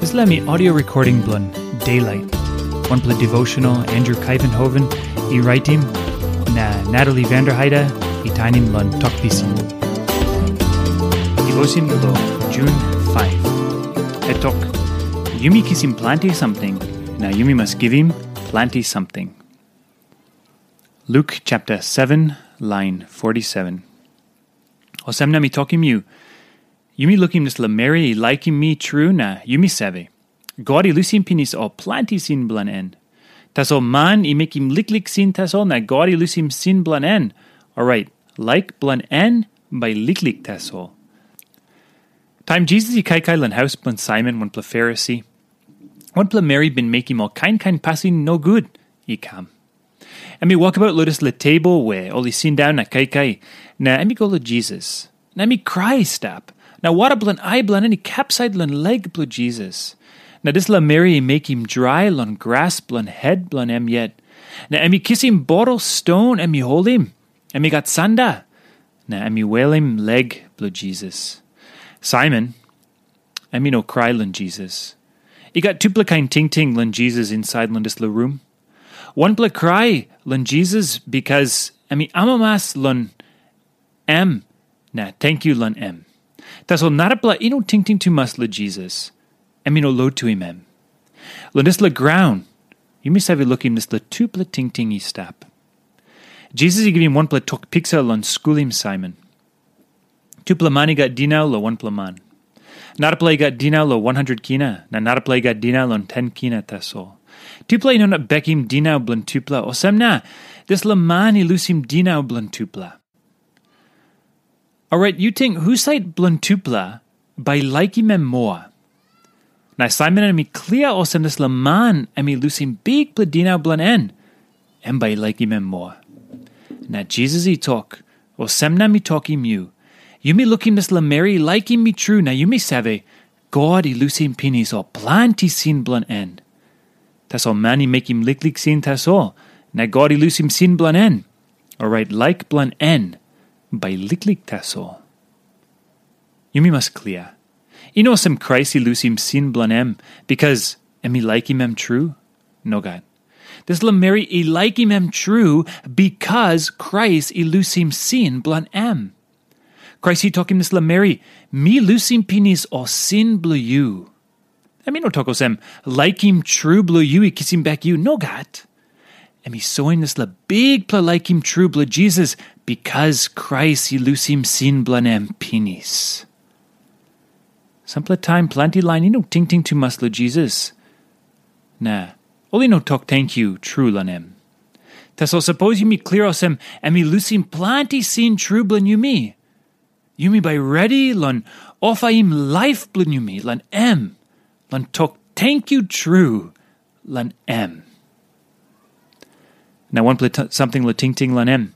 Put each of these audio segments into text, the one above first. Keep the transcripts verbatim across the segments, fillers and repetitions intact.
Dispela mi audio recording bilong Daylight, wanpela devotional Andrew Kaivenhoven i raitim, na Natalie Vanderheide i tainim long Tok Pisin. Devotion bilong June five. E tok, yumi kisim planti samting, na yumi mas givim planti samting. Luke chapter seven, line forty-seven. Olsem na mi tokim yu, yumi lukim dispela meri i laikim mi tru na yumi save, God i lusim pinis ol planti sin bilong en. Tasol man i mekim liklik sin tasol na God i lusim sin bilong en. Orait, laik bilong en bai liklik tasol. Taim Jisas i kaikai long haus bilong Saimon wanpela Farisi, wanpela meri bin mekim ol kain kain pasin nogut i kam. Em i wokabaut long dispela tebol we ol i sindaun na kaikai, na em i go long Jisas. Na em i krai i stap. Na wara bilong ai bilong en i kapsait long lek bilong Jisas. Na dispela meri i mekim drai long gras bilong het bilong em yet. Na em i kisim botol ston em i holim. Em i gat sanda. Na em i welim lek bilong Jisas. Saimon, em i no krai long Jisas. I gat tupela kain tingting long Jisas insait long dispela rum. Wanpela krai long Jisas bikas em i amamas long em na tenkyu long em. Tasol narapela i no tingting tumas long Jisas. Em i no lotuim em. Long dispela graun, yumi save lukim dispela tupela tingting i stap. Jisas i givim wanpela tok piksa long skulim Saimon. Tupela man i gat dinau long wanpela man. Narapela i gat dinau long wan hundred kina, na narapela i gat dinau long ten kina tasol. Tupela i no inap bekim dinau bilong tupela, olsem na dispela man i lusim dinau bilong tupela. Orait yu ting husat bilong tupela bai laikim em moa? Na Saimon em i klia olsem dispela man em i lusim bikpela dinau bilong en, em bai i laikim em moa. Na Jisas i tok, olsem na mi tokim yu, yumi lukim dispela meri i laikim mi tru na yumi save, God i lusim pinis ol planti sin bilong en. Tasol man i mekim liklik sin tasol, na God i lusim sin bilong en, orait laik bilong en bai liklik tasol. Yumi mas klia. I no olsem Krais i lusim sin bilong em bikas em i laikim em tru. Nogat. Dispela meri i laikim em tru bikas Krais i lusim sin bilong em. Krais i tokim dispela meri, mi lusim pinis ol sin bilong yu. Em i no tok olsem, laikim tru bilong yu i kisim bek yu. Nogat. Em i soim dispela bikpela laikim tru bilong Jisas bikas Krais i lusim sin bilong em pinis. Sampela taim planti lain i no tingting tumas long Jisas. Na ol i no tok tenkyu tru long em. Tasol sapos yumi klia olsem em i lusim planti sin tru bilong yumi, yumi bai redi long ofaim laip bilong yumi long em, long tok tenkyu tru long em. Na wanpela samting long tingting long em.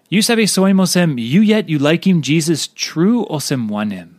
Yu save soim olsem yu yet yu laikim Jisas tru olsem wanem?